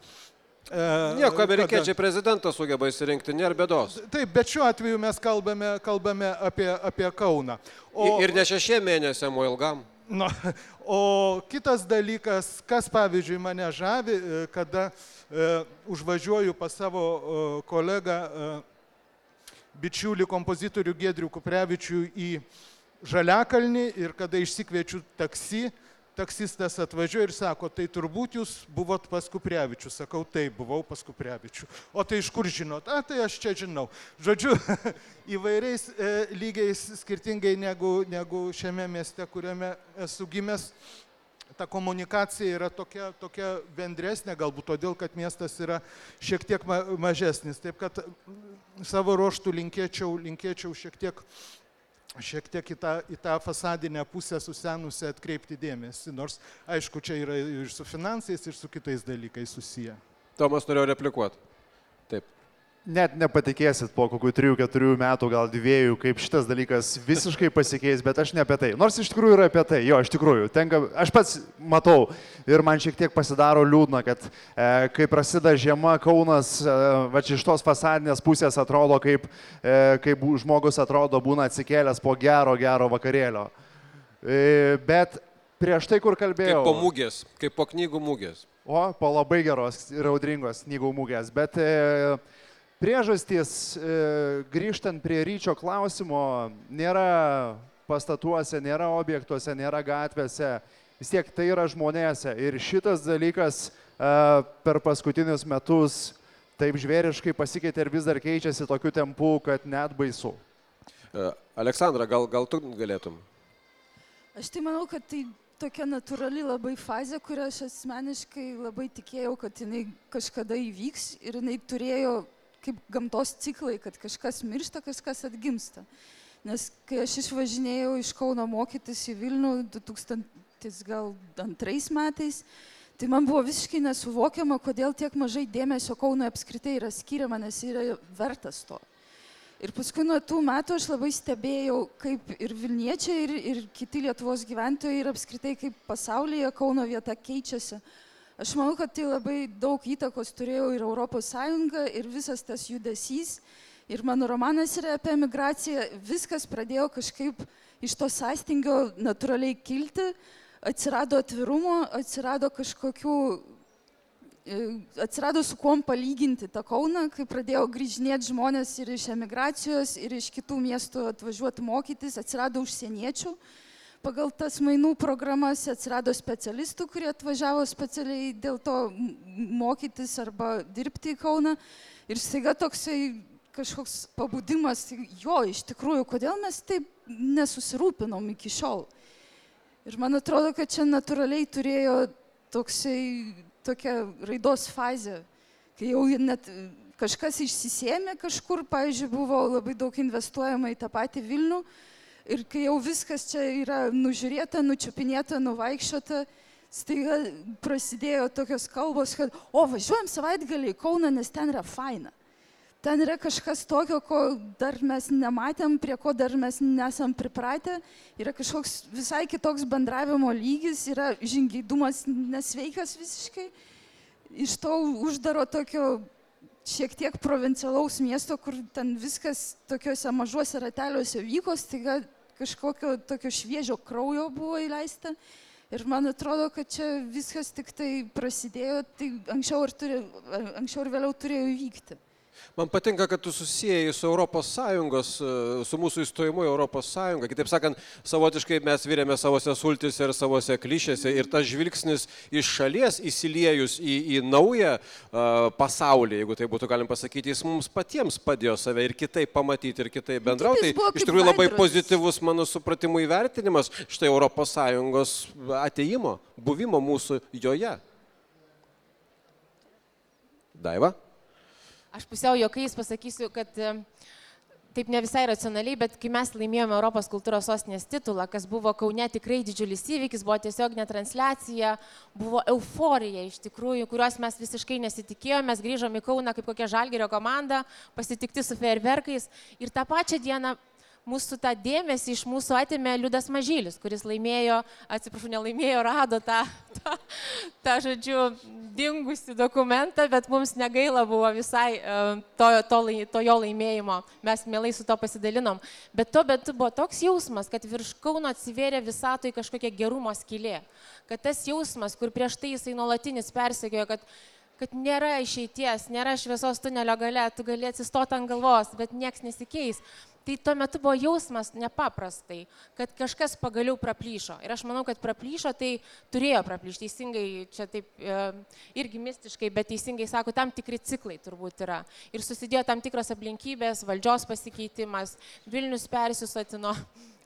Speaker 1: Nieko, amerikiečiai prezidentas sugeba įsirinkti, nėra bėdos.
Speaker 2: Taip, bet šiuo atveju mes kalbame apie Kauną.
Speaker 1: Ir ne 6 mėnesiam, o ilgam.
Speaker 2: No, o kitas dalykas, kas pavyzdžiui mane žavi, kada užvažiuoju pas savo kolegą, bičiulį kompozitorių Giedrių Kuprevičių į Žaliakalnį ir kada išsikviečiu taksi, taksistas atvažiuoja ir sako, tai turbūt jūs buvot pas Kuprevičių. Sakau, taip, buvau pas Kuprevičių. O tai iš kur žinot? Tai aš čia žinau. Žodžiu, įvairiais lygiais skirtingai negu šiame mieste, kuriame esu gimęs, ta komunikacija yra tokia bendresnė, galbūt todėl, kad miestas yra šiek tiek mažesnis. Taip kad savo ruožtų linkėčiau šiek tiek į tą fasadinę pusę susenusią atkreipti dėmesį, nors aišku, čia yra ir su finansais, ir su kitais dalykais susiję.
Speaker 1: Tomas norėjo replikuoti. Taip.
Speaker 4: Net nepatikėsit po kokių 3-4 metų, gal 2, kaip šitas dalykas visiškai pasikeis, bet aš ne apie tai. Nors iš tikrųjų yra apie tai, jo, iš tikrųjų. Aš pats matau ir man šiek tiek pasidaro liūdna, kad kai prasideda žiema, Kaunas va iš tos fasadinės pusės atrodo, kaip žmogus atrodo būna atsikėlęs po gero vakarėlio. Bet prieš tai, kur kalbėjau...
Speaker 1: Kaip po mūgės, kaip po knygų mūgės.
Speaker 4: O, po labai geros ir audringos knygų mūgės, bet... Priežastys, grįžtant prie Ryčio klausimo, nėra pastatuose, nėra objektuose, nėra gatvėse, vis tiek tai yra žmonėse. Ir šitas dalykas per paskutinius metus taip žvėriškai pasikeitė ir vis dar keičiasi tokiu tempu, kad net baisu.
Speaker 1: Aleksandra, gal tu galėtum?
Speaker 3: Aš tai manau, kad tai tokia natūrali labai fazė, kurią aš asmeniškai labai tikėjau, kad jinai kažkada įvyks ir jinai turėjo kaip gamtos ciklai, kad kažkas miršta, kažkas atgimsta. Nes kai aš išvažinėjau iš Kauno mokytis į Vilnių 2002 metais, tai man buvo visiškai nesuvokiama, kodėl tiek mažai dėmesio Kauno apskritai yra skiriama, nes yra vertas to. Ir paskui nuo tų metų aš labai stebėjau, kaip ir Vilniečiai, ir kiti Lietuvos gyventojai, ir apskritai kaip pasaulyje Kauno vieta keičiasi. Aš manau, kad tai labai daug įtakos turėjo ir Europos Sąjunga, ir visas tas judesys. Ir mano romanas yra apie emigraciją. Viskas pradėjo kažkaip iš to sąstingio natūraliai kilti. Atsirado atvirumo, atsirado su kuom palyginti tą Kauną, kai pradėjo grįžinėti žmonės ir iš emigracijos, ir iš kitų miestų atvažiuoti mokytis, atsirado užsieniečių. pagal tas mainų programas atsirado specialistų, kurie atvažiavo specialiai dėl to mokytis arba dirbti į Kauną. Ir staiga toksai kažkoks pabudimas, jo, iš tikrųjų, kodėl mes taip nesusirūpinom iki šiol. Ir man atrodo, kad čia natūraliai turėjo tokia raidos fazė, kai jau net kažkas išsisėmė kažkur, pavyzdžiui, buvo labai daug investuojama į tą patį Vilnių ir kai jau viskas čia yra nužiūrėta, nučiupinėta, nuvaikščiota, staiga prasidėjo tokios kalbos, kad važiuojam savaitgalį į Kauną, nes ten yra faina. Ten yra kažkas tokio, ko dar mes nematėm, prie ko dar mes nesam pripratę. Yra kažkoks visai kitoks bendravimo lygis, yra žingeidumas nesveikas visiškai. Iš to uždaro tokio šiek tiek provincialaus miesto, kur ten viskas tokiuose mažuose rateliuose vyko, staiga kažkokio tokio šviežio kraujo buvo įleista. Ir man atrodo, kad čia viskas tik tai prasidėjo, tai anksčiau ir vėliau turėjo įvykti.
Speaker 1: Man patinka, kad tu susijai su Europos Sąjungos, su mūsų įstojimu į Europos Sąjungą. Kitaip sakant, savotiškai mes virėme savose sultise ir savose klišėse ir tas žvilgsnis iš šalies įsiliejus į naują pasaulį, jeigu tai būtų galim pasakyti, jis mums patiems padėjo save ir kitaip pamatyti ir kitaip bendrauti. Tai iš tikrųjų labai pozityvus mano supratimu įvertinimas štai Europos Sąjungos atėjimo, buvimo mūsų joje. Daiva?
Speaker 5: Aš pusiau juokais pasakysiu, kad taip ne visai racionaliai, bet kai mes laimėjome Europos kultūros sostinės titulą, kas buvo Kaune tikrai didžiulis įvykis, buvo tiesiog netransliacija, buvo euforija iš tikrųjų, kurios mes visiškai nesitikėjome, mes grįžom į Kauną kaip kokia Žalgirio komanda, pasitikti su fejerverkais ir tą pačią dieną mūsų tą dėmesį iš mūsų atėmė Liudas Mažylis, kuris laimėjo, rado tą žodžiu, dingusi dokumentą, bet mums negaila buvo visai to jo laimėjimo. Mes mielai su to pasidalinom. Bet tuo metu buvo toks jausmas, kad virš Kauno atsivėrė visatoj kažkokia gerumo skylė. Kad tas jausmas, kur prieš tai jisai nuolatinis persekiojo, kad nėra išeities, nėra šviesos tunelio gale, tu gali atsistoti ant galvos, bet nieks nesikeis. Tai tuo metu buvo jausmas nepaprastai, kad kažkas pagaliau praplyšo. Ir aš manau, kad praplyšo, tai turėjo praplyšti. Teisingai, čia taip irgi mistiškai, bet teisingai sako, tam tikri ciklai turbūt yra. Ir susidėjo tam tikros aplinkybės, valdžios pasikeitimas, Vilnius persisotino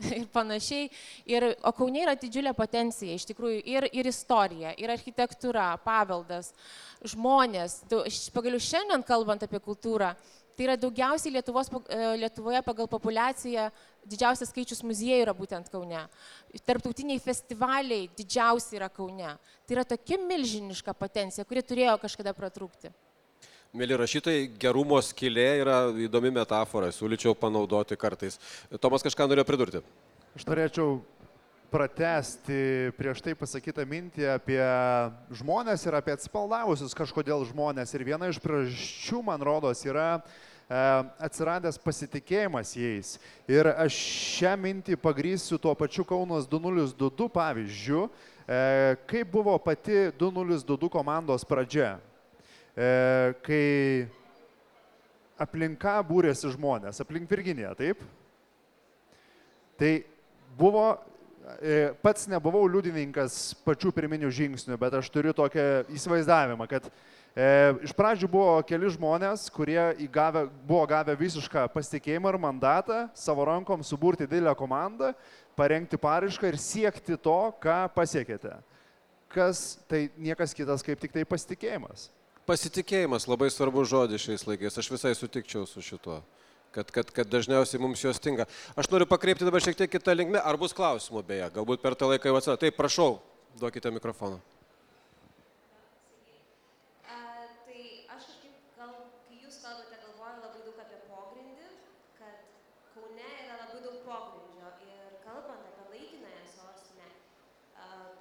Speaker 5: ir panašiai. O Kaune yra didžiulė potencija, iš tikrųjų, ir istorija, ir architektūra, paveldas, žmonės. Pagaliau šiandien kalbant apie kultūrą, tai yra daugiausiai Lietuvoje pagal populiaciją, didžiausias skaičius muziejų yra būtent Kaune. Tarptautiniai festivaliai didžiausi yra Kaune. Tai yra tokia milžiniška potencija, kuri turėjo kažkada pratrūkti.
Speaker 1: Mėly rašytojai, gerumo skylė yra įdomi metafora, siūlyčiau panaudoti kartais. Tomas kažką norėjo pridurti.
Speaker 4: Aš norėčiau pratęsti prieš tai pasakytą mintį apie žmonės ir apie atsipaldavusius kažkodėl žmonės. Ir viena iš priežasčių, man rodos, yra atsiradęs pasitikėjimas jais. Ir aš šią mintį pagrįsiu tuo pačiu Kaunas 2022 pavyzdžiu, kaip buvo pati 2022 komandos pradžia. Kai aplinka būrėsi žmonės, aplink Virginiją, taip? Tai buvo, pats nebuvau liudininkas pačių pirminių žingsnių, bet aš turiu tokią įsivaizdavimą, kad iš pradžių buvo keli žmonės, kurie buvo gavę visišką pasitikėjimą ir mandatą savo rankom suburti didelę komandą, parengti paraišką ir siekti to, ką pasiekėte. Kas tai niekas kitas kaip tik tai pasitikėjimas.
Speaker 1: Pasitikėjimas labai svarbus žodis šiais laikais, aš visai sutikčiau su šituo, kad dažniausiai mums jos stinga. Aš noriu pakreipti dabar šiek tiek kitą linkmę, ar bus klausimų beje, galbūt per tą laiką jau atsirado. Taip, prašau, duokite mikrofoną.
Speaker 7: Tai aš kažkaip, kai jūs kalbate, galvoju labai daug apie pogrindį, kad Kaune yra labai daug pogrindžio ir kalbant apie laikinąją sostinę,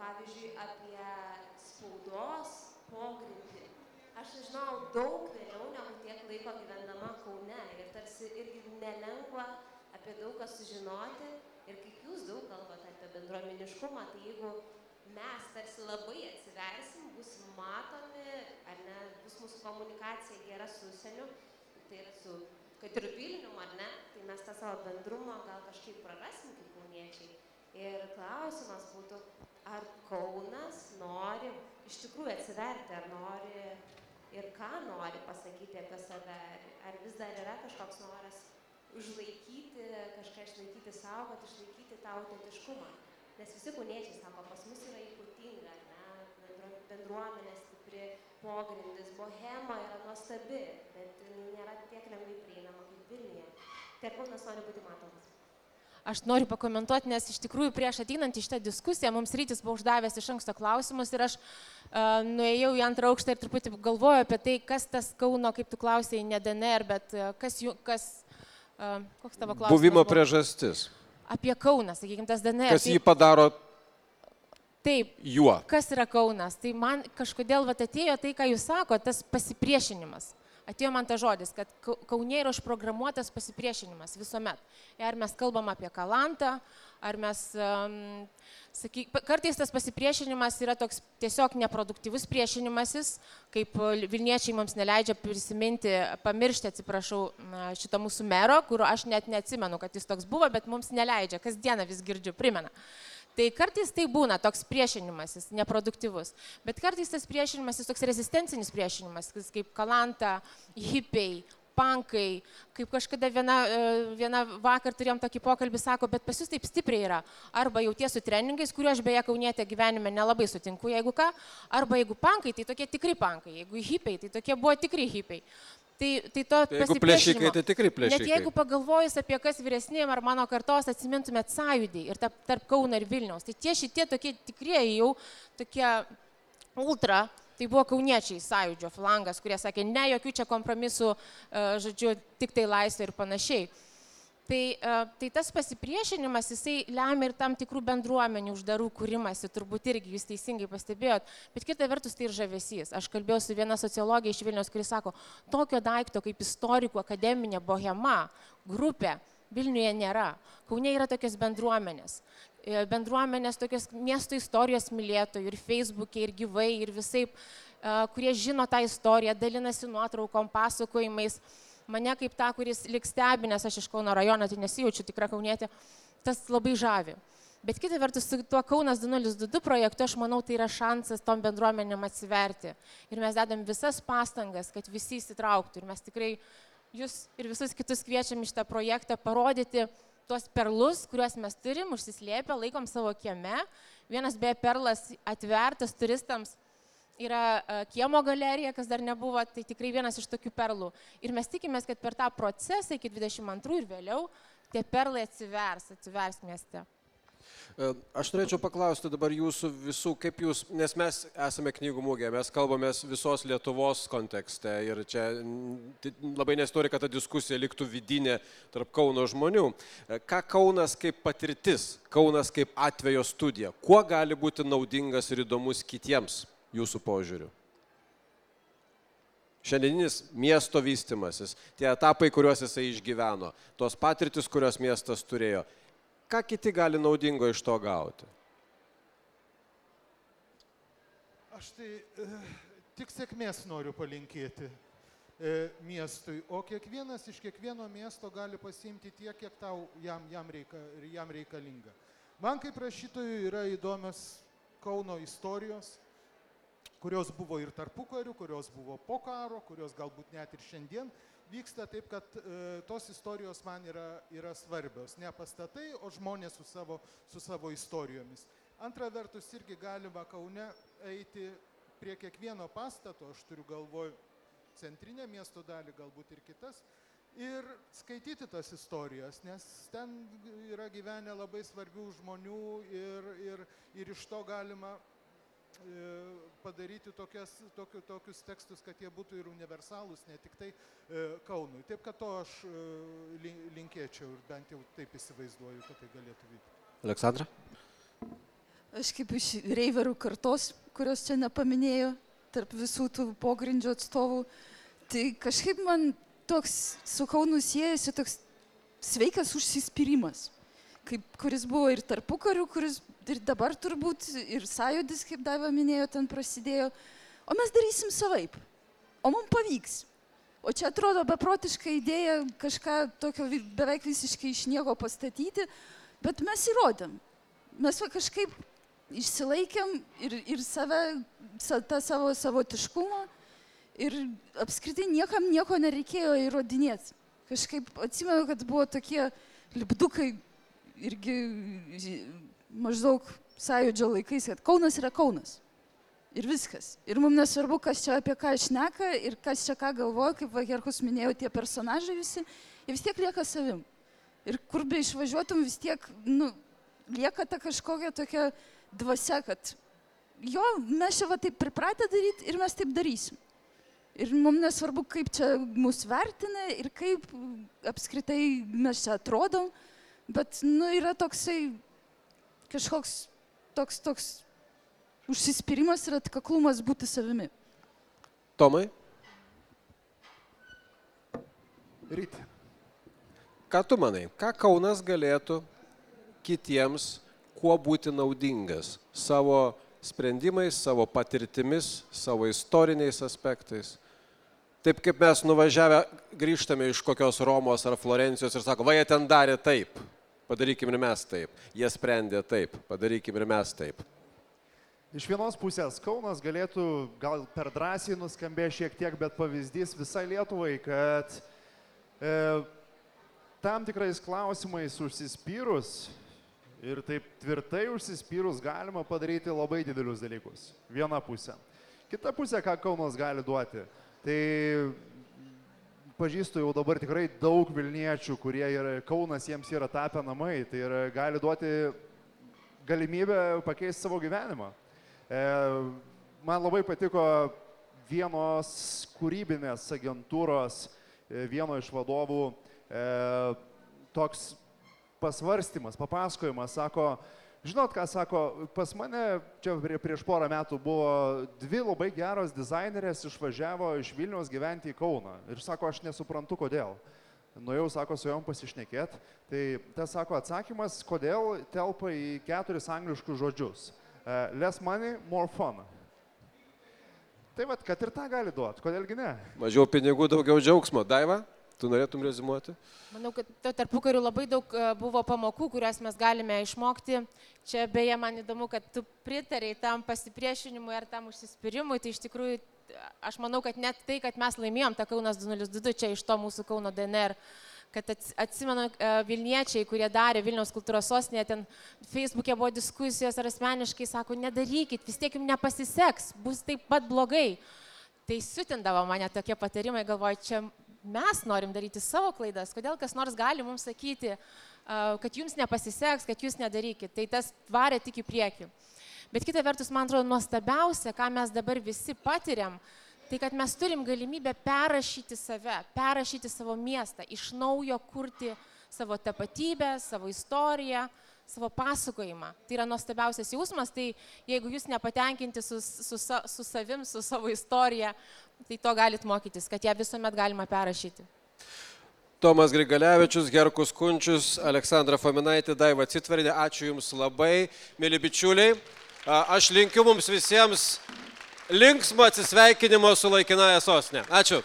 Speaker 7: pavyzdžiui, apie spaudos pogrindį, aš žinau daug vėliau negu tiek laiko gyvendama Kaune ir tarsi irgi nelengva apie daug ką sužinoti ir kaip jūs daug kalbate apie bendruomeniškumą, tai jeigu mes tarsi labai atsiversim, bus matomi, ar ne, bus mūsų komunikacija gera su užsieniu, tai yra su, kad ir Vilnium, ar ne, tai mes tą savo bendrumą gal kažkaip prarasim kaip kauniečiai. Ir klausimas būtų, ar Kaunas nori iš tikrųjų atsiverti, ar nori ir ką nori pasakyti apie save, ar vis dar yra kažkoks noras užlaikyti, kažką išlaikyti savo, kad išlaikyti tą autentiškumą. Nes visi kauniečiai sako, pas mus yra ypatinga, ne, bendruomenė stipri, pogrindis, bohema yra nuostabi, bet nėra tiek lengvai prieinama kaip Vilniuje. Tai Kaunas nori būti matomas.
Speaker 5: Aš noriu pakomentuoti, nes iš tikrųjų prieš ateinant į šitą diskusiją mums Rytis buvo uždavęs iš anksto klausimus ir aš nuėjau į antrą aukštą ir truputį galvoju apie tai, kas tas Kauno, kaip tu klausėjai, ne DNR, bet koks tavo klausimas?
Speaker 1: Buvimo priežastis.
Speaker 5: Apie Kauną, sakykime, tas DNR.
Speaker 1: Kas jį padaro
Speaker 5: taip,
Speaker 1: juo?
Speaker 5: Kas yra Kaunas? Tai man kažkodėl atėjo tai, ką jūs sako, tas pasipriešinimas. Atėjo man ta žodis, kad Kaune yra užprogramuotas pasipriešinimas visuomet. Ar mes kalbam apie Kalantą, ar mes, kartais tas pasipriešinimas yra toks tiesiog neproduktyvus priešinimasis, kaip Vilniečiai mums neleidžia prisiminti, pamiršti, atsiprašau, šito mūsų mero, kur aš net neatsimenu, kad jis toks buvo, bet mums neleidžia, kasdieną vis girdžiu, primena. Tai kartais tai būna toks priešinimasis, neproduktyvus, bet kartais tas priešinimasis toks rezistencinis priešinimasis, kaip Kalanta, hipiai, pankai, kaip kažkada viena vakar turėjom tokį pokalbį, sako, bet pas jūs taip stipriai yra, arba jauties su treningais, kuriuo aš beje kaunietė gyvenime nelabai sutinku, jeigu ką, arba jeigu pankai, tai tokie tikri pankai, jeigu hipiai, tai tokie buvo tikri hipiai. Tai to
Speaker 1: jeigu plėšikai, tai tikrai plėšikai.
Speaker 5: Net jeigu pagalvojus apie kas vyresniem ar mano kartos atsimintumėt Sąjūdį ir tarp Kauno ir Vilniaus, tai tie šitie tokie tikrieji jau tokie ultra, tai buvo kauniečiai Sąjūdžio flangas, kurie sakė, ne, jokių čia kompromisų, žodžiu, tik tai laisvė ir panašiai. Tai tas pasipriešinimas, jisai lemia ir tam tikrų bendruomenių uždarų kūrimasi, turbūt irgi jūs teisingai pastebėjot, bet kita vertus tai ir žavesys. Aš kalbėjau su viena sociologija iš Vilniaus, kuris sako, tokio daikto kaip istorikų akademinė bohema, grupė, Vilniuje nėra. Kaune yra tokios bendruomenės. Bendruomenės tokios miesto istorijos mylėtojų ir Facebook'e, ir gyvai, ir visaip, kurie žino tą istoriją, dalinasi nuotraukom, pasakojimais. Mane kaip ta, kuris liks stebi, nes aš iš Kauno rajono, tai nesijaučiu tikra kaunietė, tas labai žavi. Bet kita vertus, su tuo Kaunas 2022 projektu, aš manau, tai yra šansas tom bendruomenėm atsiverti. Ir mes dedam visas pastangas, kad visi įsitrauktų. Ir mes tikrai jūs ir visus kitus kviečiam iš tą projektą parodyti tuos perlus, kuriuos mes turim, užsislėpę, laikom savo kieme. Vienas beje perlas atvertas turistams yra kiemo galerija, kas dar nebuvo, tai tikrai vienas iš tokių perlų. Ir mes tikimės, kad per tą procesą iki 22 ir vėliau tie perlai atsivers mieste.
Speaker 1: Aš norėčiau paklausti dabar jūsų visų, kaip jūs, nes mes esame knygų mugė, mes kalbamės visos Lietuvos kontekste ir čia labai nesinori, kad ta diskusija liktų vidinė tarp Kauno žmonių. Ką Kaunas kaip patirtis, Kaunas kaip atvejo studija, kuo gali būti naudingas ir įdomus kitiems jūsų požiūriu? Šiandieninis miesto vystimasis, tie etapai, kuriuos jisai išgyveno, tos patirtis, kurios miestas turėjo, ką kiti gali naudingo iš to gauti?
Speaker 2: Aš tai tik sėkmės noriu palinkėti miestui, o kiekvienas iš kiekvieno miesto gali pasiimti tiek, kiek tau jam reikalinga. Man kaip rašytojui yra įdomios Kauno istorijos, kurios buvo ir tarpukariu, kurios buvo po karo, kurios galbūt net ir šiandien vyksta, taip kad tos istorijos man yra svarbios. Ne pastatai, o žmonės su savo istorijomis. Antra vertus, irgi galima Kaune eiti prie kiekvieno pastato, aš turiu galvoj centrinę miesto dalį, galbūt ir kitas, ir skaityti tas istorijas, nes ten yra gyvenę labai svarbių žmonių ir iš to galima padaryti tokius tekstus, kad jie būtų ir universalūs, ne tik tai Kaunui. Taip, kad to aš linkėčiau ir bent jau taip įsivaizduoju, kad tai galėtų vykti.
Speaker 1: Aleksandra?
Speaker 3: Aš kaip iš reiverų kartos, kurios čia nepaminėjo, tarp visų tų pogrindžio atstovų, tai kažkaip man toks su Kaunu siejasi toks sveikas užsispyrimas, kuris buvo ir tarpukariu, kuris ir dabar turbūt, ir Sąjūdis, kaip Daiva minėjo, ten prasidėjo. O mes darysim savaip. O mums pavyks. O čia atrodo beprotiška idėja kažką tokio beveik visiškai iš nieko pastatyti, bet mes įrodėm. mes va kažkaip išsilaikėm ir save, tą savo savotiškumą ir apskritai niekam nieko nereikėjo įrodinėti. Kažkaip atsimenu, kad buvo tokie lipdukai irgi maždaug sąjūdžio laikais, kad Kaunas yra Kaunas. Ir viskas. Ir mums nesvarbu, kas čia apie ką šneka ir kas čia ką galvoja, kaip va Herkus minėjo, tie personažai visi, jie vis tiek lieka savim. Ir kur be išvažiuotum, vis tiek, lieka ta kažkokia tokia dvasia, kad jo, mes čia va taip pripratę daryti ir mes taip darysim. Ir mums nesvarbu, kaip čia mus vertina ir kaip apskritai mes čia atrodom, bet, yra toksai kažkoks toks užsispyrimas ir atkaklumas būti savimi.
Speaker 1: Tomai?
Speaker 2: Ryti.
Speaker 1: Ką tu manai? Ką Kaunas galėtų kitiems kuo būti naudingas? Savo sprendimais, savo patirtimis, savo istoriniais aspektais? Taip kaip mes nuvažiavę grįžtame iš kokios Romos ar Florencijos ir sako, va jie ten darė taip, padarykim ir mes taip. Jie sprendė taip, padarykim ir mes taip.
Speaker 4: Iš vienos pusės Kaunas galėtų gal per drąsiai nuskambė šiek tiek, bet pavyzdys visai Lietuvai, kad tam tikrais klausimais užsispyrus ir taip tvirtai užsispyrus galima padaryti labai didelius dalykus. Viena pusė. Kita pusė, ką Kaunas gali duoti. Tai pažįstu jau dabar tikrai daug Vilniečių, kurie Kaunas jiems yra tapę namai. Tai gali duoti galimybę pakeisti savo gyvenimą. Man labai patiko vienos kūrybinės agentūros, vieno iš vadovų, toks pasvarstymas, papasakojimas, sako, žinot ką, sako, pas mane čia prieš porą metų buvo 2 labai geros dizainerės išvažiavo iš Vilniaus gyventi į Kauną. Ir sako, aš nesuprantu, kodėl. Nuėjau, sako, su jom pasišnekėt. Tai tas, sako, atsakymas, kodėl telpa į 4 angliškus žodžius. Less money, more fun. Tai vat, kad ir tą gali duoti, kodėlgi ne?
Speaker 1: Mažiau pinigų, daugiau džiaugsmo. Daiva, tu norėtum rezimuoti?
Speaker 5: Manau, kad tarpukariu labai daug buvo pamokų, kurias mes galime išmokti. Čia beje, man įdomu, kad tu pritarei tam pasipriešinimui ar tam užsispyrimui. Tai iš tikrųjų, aš manau, kad net tai, kad mes laimėjom tą Kaunas 202 čia iš to mūsų Kauno DNR, kad atsimenu Vilniečiai, kurie darė Vilniaus kultūros sostinėje, ten Facebook'e buvo diskusijos ar asmeniškai, sako, nedarykit, vis tiek jums nepasiseks, bus taip pat blogai. Tai siutindavo mane tokie patarimai, galvoju, čia mes norim daryti savo klaidas, kodėl kas nors gali mums sakyti, kad jums nepasiseks, kad jūs nedarykit. Tai tas varė tik į priekį. Bet kita vertus, man atrodo, nuostabiausia, ką mes dabar visi patiriam, tai kad mes turim galimybę perrašyti save, perrašyti savo miestą, iš naujo kurti savo tapatybę, savo istoriją, savo pasakojimą. Tai yra nuostabiausias jausmas, tai jeigu jūs nepatenkinti su savim, su savo istorija, tai to galit mokytis, kad ją visuomet galima perrašyti.
Speaker 1: Tomas Grigalevičius, Herkus Kunčius, Aleksandra Fominaitė, Daiva Citvarienė, ačiū Jums labai, mėly bičiuliai. Aš linkiu mums visiems linksmo atsisveikinimo su laikinąja sostine. Ačiū.